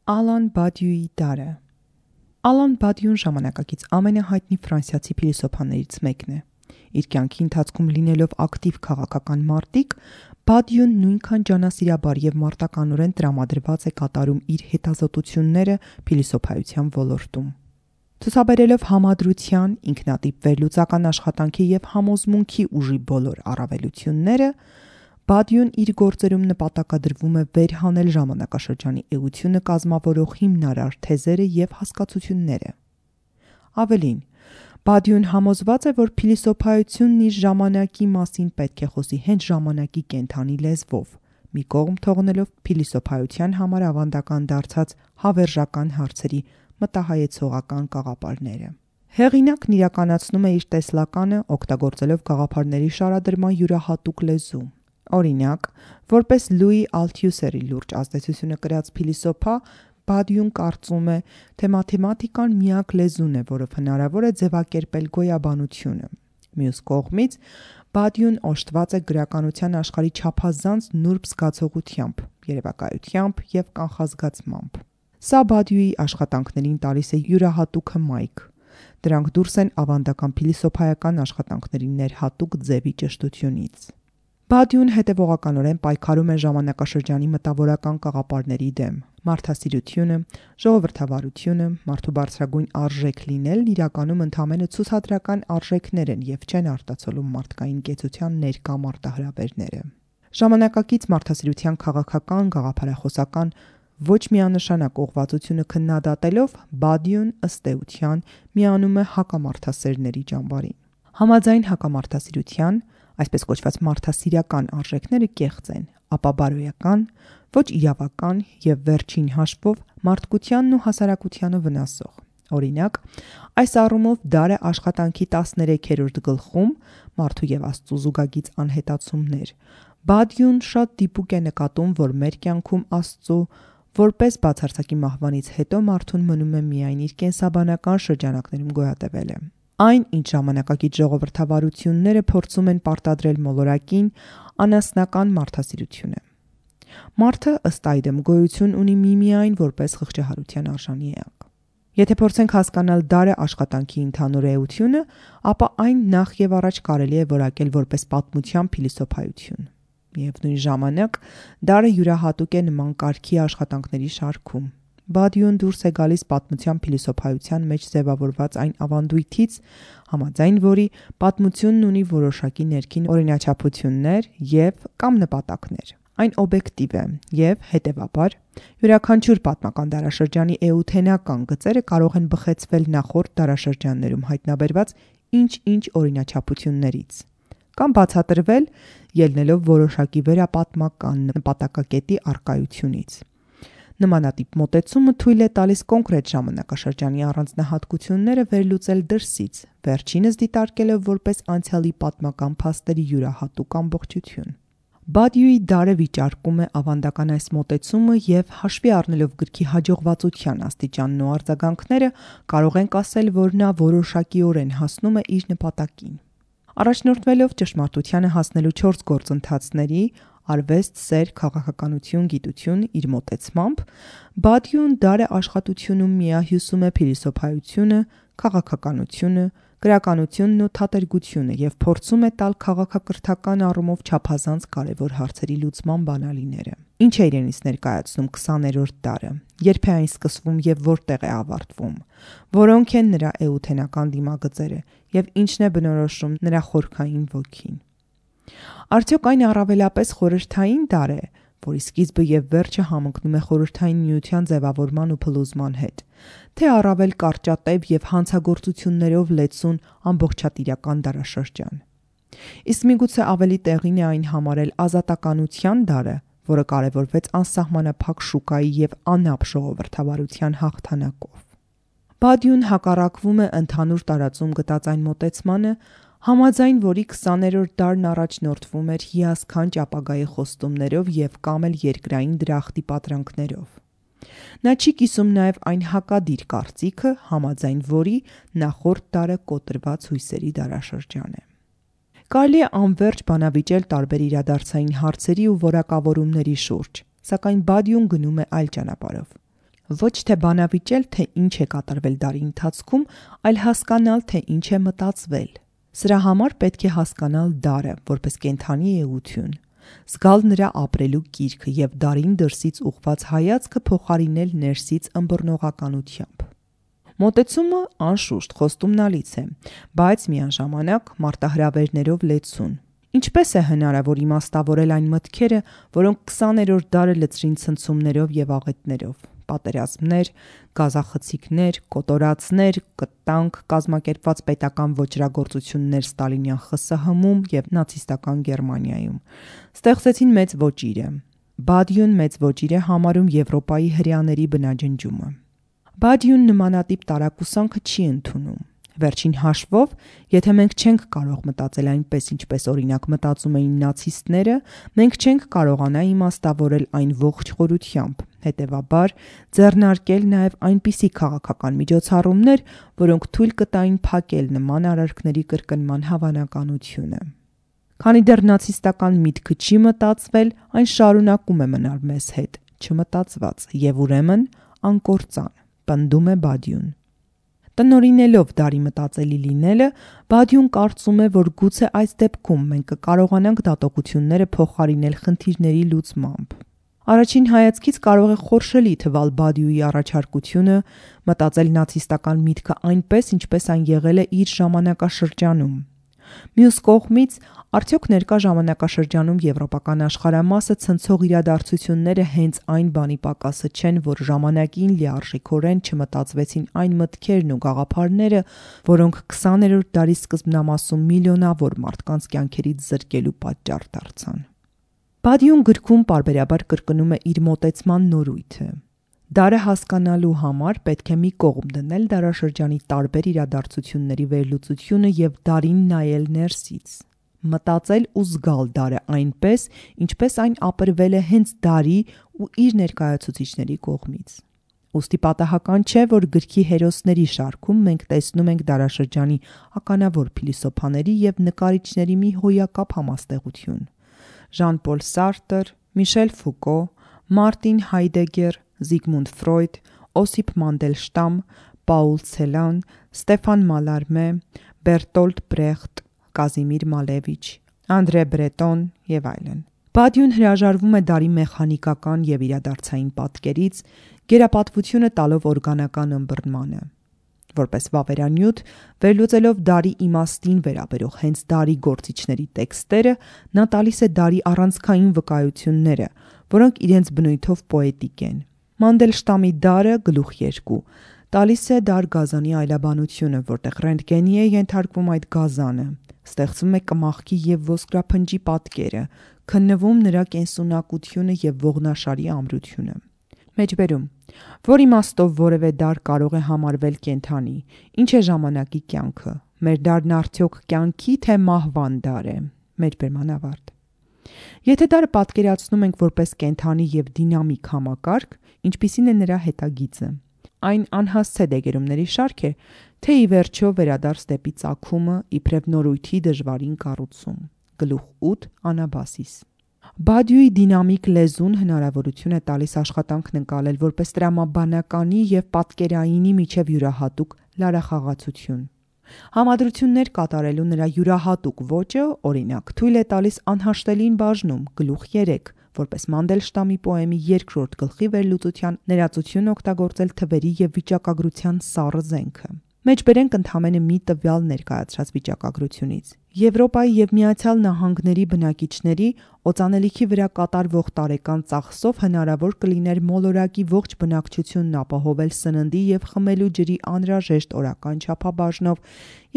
Ալան Բադյուի դարը։ Ալան Բադյուն ժամանակակից ամենահայտնի ֆրանսիացի փիլիսոփաներից մեկն է։ Իր կյանքի ընթացքում լինելով ակտիվ քաղաքական մարտիկ, Բադյուն նույնքան ջանասիրաբար եւ մարտականորեն տրամադրված է կատարում իր հետազոտությունները փիլիսոփայության ոլորտում։ Ցուցաբերելով համադրության, ինքնատիպ վերլուծական աշխատանքի եւ համոզմունքի ուժի բոլոր առավելությունները, Բադյուն իր գործերում նպատակադրվում է վերհանել ժամանակաշրջանի էությունը կազմավորող հիմնարար թեզերը եւ հասկացությունները։ Ավելին, Բադյուն համոզված է, որ փիլիսոփայությունն իր ժամանակի մասին պետք է խոսի հենց ժամանակի կենդանի լեզվով, մի կողմ թողնելով փիլիսոփայության համար ավանդական դարձած հավերժական հարցերի մտահայեցողական կաղապարները։ Հեղինակն իրականացնում է իր տեսլականը, օգտագործելով գաղափարների շարադրման յուրահատուկ լեզու։ Օրինակ, որպես Լուի Ալթյուսերի լուրջ ազդեցությունը կրած փիլիսոփա, Բադյուն կարծում է, թե մաթեմատիկան միակ լեզուն է, որով հնարավոր է ձևակերպել գոյաբանությունը։ Մյուս կողմից, Բադյուն օժտված է գրականության աշխարհի չափազանց նուրբ զգացողությամբ, երևակայությամբ եւ կանխազգացմամբ։ Սա Բադյուի աշխատանքներին տալիս է յուրահատուկ հմայք։ Դրանք դուրս են ավանդական փիլիսոփայական աշխատանքների ներհատուկ ձևի ճշտությունից։ Բադյուն հետևողականորեն պայքարում է ժամանակաշրջանի մտավորական կաղապարների դեմ։ Մարդասիրությունը, ժողովրդավարությունը, մարդու բարձրագույն արժեք լինելն իրականում ընդամենը ցուցադրական արժեքներ են եւ չեն արտացոլում մարդկային կեցության ներկա մարտահրավերները։ Ժամանակակից մարդասիրության քաղաքական, գաղափարախոսական ոչ միանշանակ ուղղվածությունը քննադատելով, Բադյուն ըստ էության միանում է հակամարդասերների ճամբարին։ Համաձայն հակամարդասիրության, այսպես կոչված մարդասիրական արժեքները կեղծ են, ապաբարոյական, ոչ իրավական եւ վերջին հաշվով մարդկությանն ու հասարակությանը վնասող։ Օրինակ, այս առումով դարը աշխատանքի 13-րդ գլխում մարդու եւ Աստծո զուգագիծ անհետացումներ։ Բադյուն շատ դիպուկ է նկատում, որ մեր կյանքում Աստծո որպես բացարձակի մահվանից հետո մարդուն մնում է միայն իր կենսաբանական շրջանակներում գոյատևելը։ Այն, ինչ ժամանակակից ժողովրդավարությունները փորձում են պարտադրել մոլորակին, անասնական մարդասիրություն է։ Մարդը ըստ այդմ գոյություն ունի միմիայն որպես խղճահարության արժանի էակ։ Եթե փորձենք հասկանալ դարը աշխատանքի ընդհանուր էությունը, ապա այն նախ եւ առաջ կարելի է որակել որպես պատմության փիլիսոփայություն։ Միևնույն ժամանակ, դարը յուրահատուկ է նման կարգի աշխատանքների շարքում։ Բադյուն դուրս է գալիս պատմության փիլիսոփայության մեջ ձևավորված այն ավանդույթից, համաձայն որի պատմությունն ունի որոշակի ներքին օրինաչափություններ եւ կամ նպատակներ։ Այն օբյեկտիվ է եւ, հետեւաբար, յուրաքանչյուր պատմական դարաշրջանի էութենական գծերը կարող են բխեցվել նախորդ դարաշրջաններում հայտնաբերված ինչ-ինչ օրինաչափություններից կամ բացատրվել ելնելով որոշակի վերապատմական նպատակակետի առկայությունից։ Նմանատիպ մոտեցումը թույլ է տալիս կոնկրետ ժամանակաշրջանի առանձնահատկությունները վերլուծել դրսից, վերջինս դիտարկելով որպես անցյալի պատմական փաստերի յուրահատուկ ամբողջություն։ Բադյուի դարը վիճարկում է ավանդական այս մոտեցումը եւ հաշվի առնելով գրքի հաջողվածության աստիճանն ու արձագանքները, կարող ենք ասել, որ նա որոշակիորեն հասնում է իր նպատակին։ Առաջնորդվելով ճշմարտությանը հասնելու 4 գործընթացների՝ արվեստ, սեր, քաղաքականություն, գիտություն, իր մոտեցմամբ, Բադյուն դարը աշխատությունում միահյուսում է փիլիսոփայությունը, քաղաքականությունը, գրականությունն ու թատերգությունը եւ փորձում է տալ քաղաքակրթական առումով չափազանց կարևոր հարցերի լուծման բանալիները։ Ինչ է իրենից ներկայացնում 20-րդ դարը, երբ է այն սկսվում եւ որտեղ է ավարտվում, որոնք են նրա էութենական դիմագծերը եւ ինչն է բնորոշում նրա խորքային ոգին։ Արդյոք այն առավելապես խորհրդային դար է, որի սկիզբը եւ վերջը համընկնում է խորհրդային միության ձևավորման ու փլուզման հետ, թե առավել կարճատև եւ հանցագործություններով լեցուն ամբողջատիրական դարաշրջան։ Իսկ միգուցե ավելի տեղին է այն համարել ազատականության դարը, որը կարևորվեց անսահմանափակ շուկայի եւ անապ ժողովրդավարության հաղթանակով։ Բադյուն հակառակվում է ընդհանուր տարածում գտած այն մոտեցմանը, համաձայն որի 20-րդ դարն առաջնորդվում էր հիասքանչ ապագայի խոստումներով եւ կամ էլ երկրային դրախտի պատրանքներով։ Նա չի կիսում նաեւ այն հակադիր կարծիքը, համաձայն որի նախորդ դարը կոտրված հույսերի դարաշրջան է։ Կարելի է անվերջ բանավիճել տարբեր իրադարձային հարցերի ու որակավորումների շուրջ, սակայն Բադյուն գնում է այլ ճանապարհով։ Ոչ թե բանավիճել, թե ինչ է կատարվել դարի ընթացքում, այլ հասկանալ, թե ինչ է մտածվել։ Սրա համար պետք է հասկանալ դարը, որպես կենդանի էություն, զգալ նրա ապրելու կիրքը և դարին դրսից ուղղված հայացքը փոխարինել ներսից ըմբռնողականությամբ։ Մոտեցումը անշուշտ խոստումնալից է, բայց միաժամանակ մարտահրավերներով լեցուն։ Ինչպես է հնարավոր իմաստավորել այն մտքերը, որոնք 20-րդ դարը լցրին ցնցումներով և աղետներով, պատերազմներ, գազախցիկներ, կոտորածներ, կտանք, կազմակերպված պետական ոճրագործություններ ստալինյան ԽՍՀՄ-ում և նացիստական Գերմանիայում, ստեղծեցին մեծ ոճիրը։ Բադյուն մեծ ոճիր է համարում Եվրոպայի հրեաների բնաջնջումը։ Բադյուն նմանատիպ տարակուսանքը չի ընդունում։ Վերջին հաշվով, եթե մենք չենք կարող մտածել այնպես, ինչպես օրինակ մտածում էին նացիստները, մենք չենք կարողանա իմաստավորել այն ողջ խորությամբ, հետևաբար ձեռնարկել նաև այնպիսի քաղաքական միջոցառումներ, որոնք թույլ կտային փակել նման արարքների կրկնման հավանականությունը։ Քանի դեռ նացիստական միտքը չի մտածվել, այն շարունակում է մնալ մեզ հետ, չմտածված և ուրեմն անկործան, պնդում է Բադյուն։ Տնօրինելով դարի մտածելի լինելը, Բադյուն կարծում է, որ գուցե այս դեպքում մենք կկարողանանք դատողությունները փոխարինել խնդիրների լուծմամբ։ Առաջին հայացքից կարող է խորշելի թվալ Բադյուի առաջարկությունը մտածել նացիստական միտքը այնպես, ինչպես այն եղել է իր ժամանակաշրջանում։ Մյուս կողմից, արդյոք ներկա ժամանակաշրջանում եվրոպական աշխարհամասը ցնցող իրադարձությունները հենց այն բանի պակասը չեն, որ ժամանակին լիարժեքորեն չմտածվեցին այն մտքերն ու գաղափարները, որոնք 20-րդ դարի սկզբնամասում միլիոնավոր մարդկանց կյանքերից զրկելու պատճառ դարձան։ Բադյուն գրքում պարբերաբար կրկնում է իր մոտեցման նորույթը։ Դարը հասկանալու համար պետք է մի կողմ դնել դարաշրջանի տարբեր իրադարձությունների վերլուծությունը և դարին նայել ներսից, մտածել ու զգալ դարը այնպես, ինչպես այն ապրվել է հենց դարի ու իր ներկայացուցիչների կողմից։ Ուստի պատահական չէ, որ գրքի հերոսների շարքում մենք տեսնում ենք դարաշրջանի ականավոր փիլիսոփաների և նկարիչների մի հոյակապ համաստեղություն։ Ժան-Պոլ Սարտր, Միշել Ֆուկո, Մարտին Հայդեգեր, Զիգմունդ Ֆրոյդ, Օսիպ Մանդելշտամ, Պաուլ Ցելան, Ստեֆան Մալարմե, Բերտոլտ Բրեխտ, Կազիմիր Մալևիչ, Անդրե Բրետոն և այլն։ Բադյուն հրաժարվում է դարի մեխանիկական և իրադարձային պատկերից, գերապատվությունը տալով օրգանական ըմբռնմանը։ Որպես վավերանյութ, վերլուծելով դարի իմաստին վերաբերող հենց դարի գործիչների տեքստերը, նա տալիս է դարի առանցքային վկայությունները, որոնք իրենց բնույթով պոետիկ են։ Մանդելշտամի դարը գլուխ 2 տալիս է դար գազանի այլաբանությունը, որտեղ ռենտգենի է ենթարկվում այդ գազանը, ստեղծվում է կմախքի և ոսկրափնջի պատկերը, քննվում նրա կենսունակությունը և ողնաշարի ամրությունը։ Մեջբերում. Որ իմաստով որևէ դար կարող է համարվել կենդանի, ինչ է ժամանակի կյանքը, մեր դարն արդյոք կյանքի թե մահվան դար է։ Մեջբերման ավարտ։ Եթե դարը պատկերացնում ենք որպես կենդանի և դինամիկ համակարգ, ինչպիսին է նրա հետագիծը։ Այն անհասցե դեգերումների շարք է, թե ի վերջո վերադարձ դեպի ծագումը, իբրև նորույթի դժվարին կառուցում։ Գլուխ 8 Անաբասիս։ Բադյուի դինամիկ լեզուն հնարավորություն է տալիս աշխատանքն ընկալել որպես տրամաբանականի և պատկերայինի միջև յուրահատուկ լարախաղացություն։ Համադրություններ կատարելու նրա յուրահատուկ ոճը, օրինակ, թույլ է տալիս անհաշտելին բաժնում, գլուխ 3, որպես Մանդելշտամի պոեմի 2-րդ գլխի վերլուծության ներածություն օգտագործել թվերի և վիճակագրության սառը զենքը։ Մեջբերենք ընդամենը մի տվյալ ներկայացրած վիճակագրությունից։ Եվրոպայի և Միացյալ Նահանգների բնակիչների օծանելիքի վրա կատարվող տարեկան ծախսով հնարավոր կլիներ մոլորակի ողջ բնակչությունն ապահովել սննդի և խմելու ջրի անհրաժեշտ օրական չափաբաժնով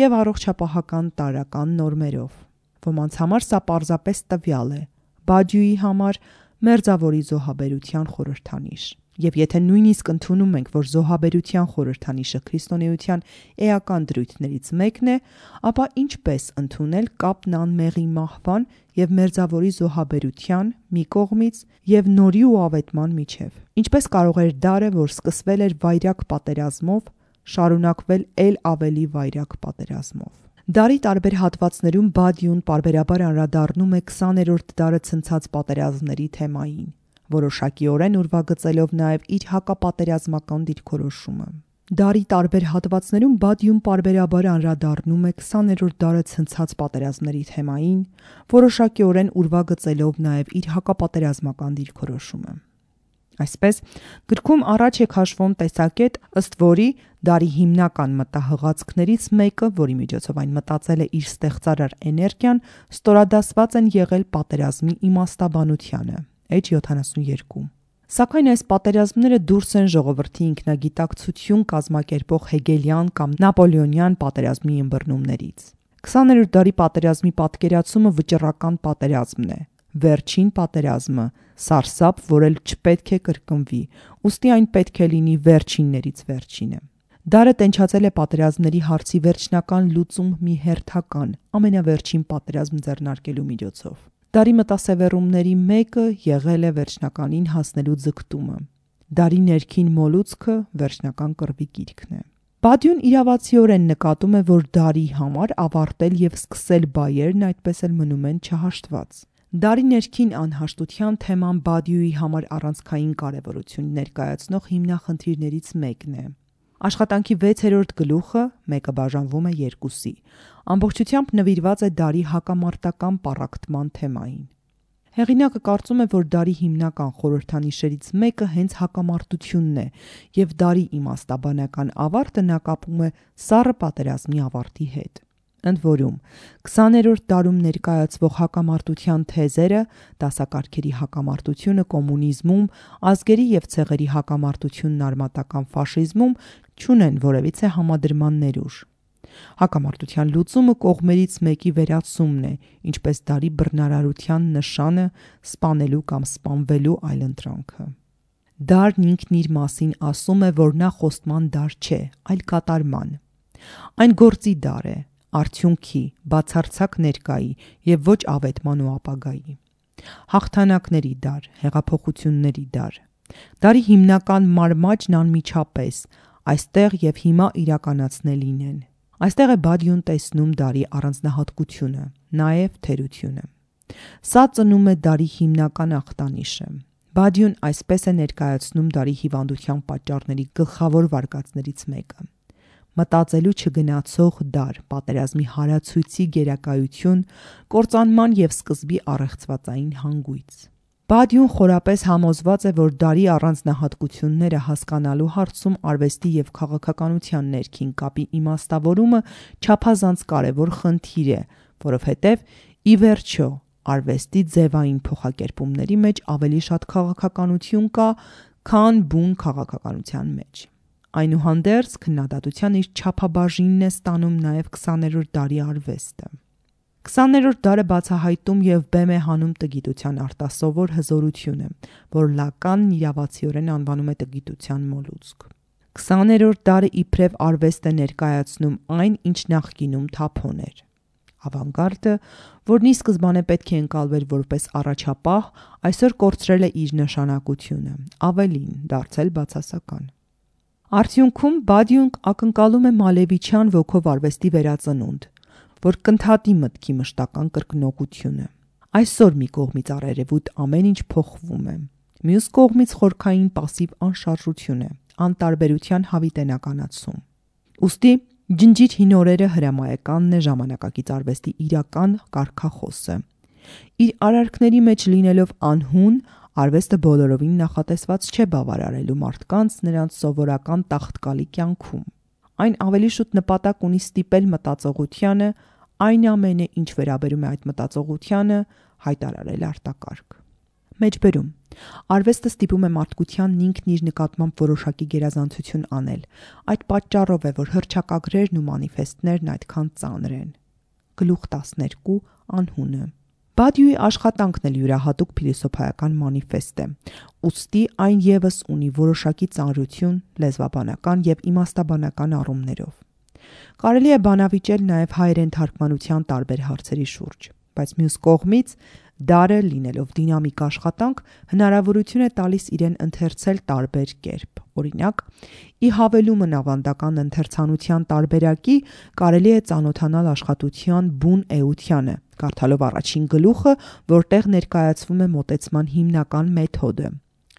և առողջապահական տարրական նորմերով։ Ոմանց համար սա պարզապես տվյալ է, Բադյուի համար մերձավորի զոհաբերության խորհրդանիշ։ Եվ եթե նույնիսկ ընդունում ենք, որ զոհաբերության խորհրդանիշը քրիստոնեության էական դրույթներից մեկն է, ապա ինչպես ընդունել կապն անմեղի մահվան և մերձավորի զոհաբերության մի կողմից և նորի ու ավետման միջև։ Ինչպես կարող էր դարը, որ սկսվել էր վայրագ պատերազմով, շարունակվել էլ ավելի վայրագ պատերազմով։ Դարի տարբեր հատվածներում Բադյուն պարբերաբար անդրադառնում է 20-րդ դարը ցնցած պատերազմների թեմային։ որոշակիորեն ուրվագծելով նաև իր հակապատերազմական դիրքորոշումը։ Դարի տարբեր հատվածներում Բադյուն պարբերաբար անդրադառնում է 20-րդ դարը ցնցած պատերազմների թեմային, որոշակիորեն ուրվագծելով նաև իր հակապատերազմական դիրքորոշումը։ Այսպես, գրքում առաջ է քաշվում տեսակետ, ըստ որի դարի հիմնական մտահղացքներից մեկը, որի միջոցով այն մտածել է իր ստեղծարար էներգիան, ստորադասված են եղել պատերազմի իմաստաբանությանը, Էջ 72։ Սակայն այս պատերազմները դուրս են ժողովրդի ինքնագիտակցություն կազմակերպող հեգելյան կամ նապոլեոնյան պատերազմի ըմբռնումներից։ 20-րդ դարի պատերազմի պատկերացումը վճռական պատերազմն է, վերջին պատերազմը, սարսափ, որ էլ չպետք է կրկնվի, ուստի այն պետք է լինի վերջիններից վերջինը։ Դարը տենչացել է պատերազմների հարցի վերջնական լուծում մի հերթական, ամենավերջին պատերազմ ձեռնարկելու միջոցով։ Դարի մտասևեռումների մեկը եղել է վերջնականին հասնելու ձգտումը։ Դարի ներքին մոլուցքը վերջնական կռվի գիրքն է։ Բադյուն իրավացիորեն նկատում է, որ դարի համար ավարտել և սկսել բայերն այդպես էլ մնում են չհաշտված։ Դարի ներքին անհաշտության թեման Բադյուի համար առանցքային կարևորություն ներկայացնող հիմնախնդիրներից մեկն է։ Աշխատանքի 6-րդ գլուխը, մեկը բաժանվում է 2-ի, ամբողջությամբ նվիրված է դարի հակամարտական պառակտման թեմային։ Հեղինակը կարծում է, որ դարի հիմնական խորհրդանիշերից մեկը հենց հակամարտությունն է, և դարի իմաստաբանական ավարտը նա կապում է սառը պատերազմի ավարտի հետ։ Ընդ որում, 20-րդ դարում ներկայացվող հակամարտության թեզերը, դասակարգերի հակամարտությունը կոմունիզմում, ազգերի և ցեղերի հակամարտությունն արմատական ֆաշիզմում չունեն որևիցե համադրման ներուժ։ Հակամարտության լուծումը կողմերից մեկի վերացումն է, ինչպես դարի բռնարարության նշանը, սպանելու կամ սպանվելու այլընտրանքը։ Դարն ինքն իր մասին ասում է, որ նա խոստման դար չէ, այլ կատարման։ Այն գործի դար է, արդյունքի, բացարձակ ներկայի և ոչ ավետման ու ապագայի։ Հաղթանակների դար, հեղափոխությունների դար։ Դարի հիմնական մարմաճն անմիջապես, այստեղ և հիմա իրականացնելին են։ Այստեղ է Բադյուն տեսնում դարի առանձնահատկությունը, նաև թերությունը։ Սա ծնում է դարի հիմնական ախտանիշը։ Բադյուն այսպես է ներկայացնում դարի հիվանդության պատճառների գլխավոր վարկածներից մեկը։ Մտածելու չգնացող դար, պատերազմի հարացույցի գերակայություն, կործանման և սկզբի առեղծվածային հանգույց։ Բադյուն խորապես համոզված է, որ դարի առանձնահատկությունները հասկանալու հարցում արվեստի և քաղաքականության ներքին կապի իմաստավորումը չափազանց կարևոր խնդիր է, որովհետև, ի վերջո, արվեստի ձևային փոխակերպումների մեջ ավելի շատ քաղաքականություն կա, քան բուն քաղաքականության մեջ։ Այնուհանդերձ, քննադատության իր չափաբաժինն է ստանում նաև 20-րդ դարի արվեստը։ 20-րդ դարը բացահայտում և բեմ է հանում տգիտության արտասովոր հզորությունը, որ Լականն իրավացիորեն անվանում է տգիտության մոլուցք։ 20-րդ դարը իբրև արվեստ է ներկայացնում այն, ինչ նախկինում թափոն էր։ Ավանգարդը, որն ի սկզբանե պետք է ընկալվեր որպես առաջապահ, այսօր կորցրել է իր նշանակությունը, ավելին, դարձել բացասական։ Արդյունքում Բադյուն ակնկալում է Մալևիչյան ոգով արվեստի վերածնունդ, որ կընդհատի մտքի մշտական կրկնօգությունը։ Այսօր մի կողմից առերևույթ ամեն ինչ փոխվում է, մյուս կողմից խորքային պասիվ անշարժություն է, անտարբերության հավիտենականացում։ Ուստի ջնջիր հին օրերը հրամայականն է ժամանակակից արվեստի իրական կարգախոսը։ Իր արարքների մեջ լինելով անհուն, արվեստը բոլորովին նախատեսված չէ բավարարելու մարդկանց նրանց սովորական տաղտկալի կյանքում։ Այն ավելի շուտ նպատակ ունի ստիպել մտածողությանը, այն ամենը, ինչ վերաբերում է այդ մտածողությանը, հայտարարել արտակարգ։ Մեջբերում, արվեստը ստիպում է մարդկությանն ինքն իր նկատմամբ որոշակի գերազանցություն անել։ Այդ պատճառով է, որ հռչակագրերն ու մանիֆեստներն այդքան ծանր են։ Գլուխ 12. Անհունը։ Բադյուի աշխատանքն էլ յուրահատուկ փիլիսոփայական մանիֆեստ է, ուստի այն ևս ունի որոշակի ծանրություն լեզվաբանական և իմաստաբանական առումներով։ Կարելի է բանավիճել նաև հայերեն թարգմանության տարբեր հարցերի շուրջ, բայց մյուս կողմից Դարը, լինելով դինամիկ աշխատանք, հնարավորություն է տալիս իրեն ընթերցել տարբեր կերպ։ Օրինակ, ի հավելումն ավանդական ընթերցանության տարբերակի, կարելի է ծանոթանալ աշխատության բուն էությանը, կարդալով առաջին գլուխը, որտեղ ներկայացվում է մոտեցման հիմնական մեթոդը։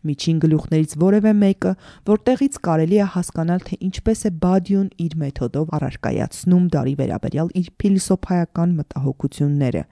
Միջին գլուխներից որևէ մեկը, որտեղից կարելի է հասկանալ, թե ինչպես է Բադյուն իր մեթոդով առարկայացնում դարի վերաբերյալ իր փիլիսոփայական մտահոգությունները,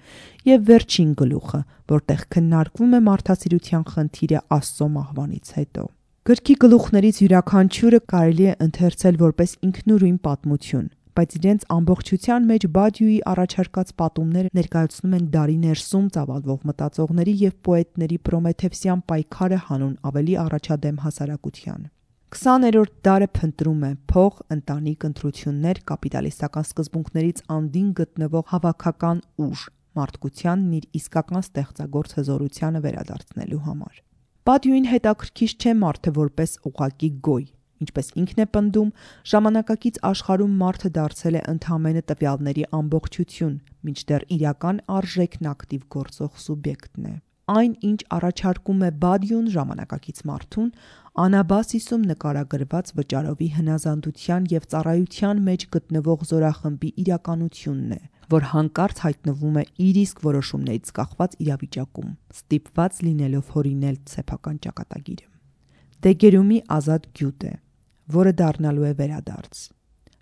եւ վերջին գլուխը, որտեղ քննարկվում է մարդասիրության խնդիրը Աստծո մահվանից հետո։ Գրքի գլուխներից յուրաքանչյուրը կարելի է ընթերցել որպես ինքնուրույն պատմություն, բայց իրենց ամբողջության մեջ Բադյուի առաջարկած պատումները ներկայացնում են դարի ներսում ծավալվող մտածողների եւ պոետների պրոմեթևսյան պայքարը հանուն ավելի առաջադեմ հասարակության։ 20-րդ դարը փնտրում է փող, ընտանիք, ընտրություններ, կապիտալիստական սկզբունքներից անդին գտնվող հավաքական ուժ, մարդկությանն իր իսկական ստեղծագործ հզորությանը վերադարձնելու համար։ Բադյուին հետաքրքիր չէ մարդը որպես ուղղակի գոյ։ Ինչպես ինքն է պնդում, ժամանակակից աշխարհում մարդը դարձել է ընդամենը տվյալների ամբողջություն, մինչդեռ իրական արժեքն ակտիվ գործող սուբյեկտն է։ Այն, ինչ առաջարկում է Բադյուն ժամանակակից մարդուն, Անաբասիսում նկարագրված վճարովի հնազանդության եւ ծառայության մեջ գտնվող զորախմբի իրականությունն է, որ հանկարծ հայտնվում է իր իսկ որոշումներից կախված իրավիճակում, ստիպված լինելով հորինել սեփական ճակատագիրը։ Դեգերումի ազատ գյուտ է, որը դառնալու է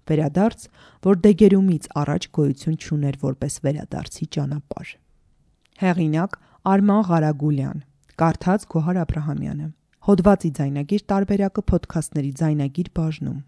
վերադարձ, որ Դեգերումից առաջ գոյություն չուներ որպես վերադարձի ճանապարհ։ Հեղինակ Արման Ղարագուլյան, կարդաց Գոհար Աբրահամյանը։ Հոդվածի ձայնագիր տարբերակը Փոդքասթների ձայնագիր բաժնում։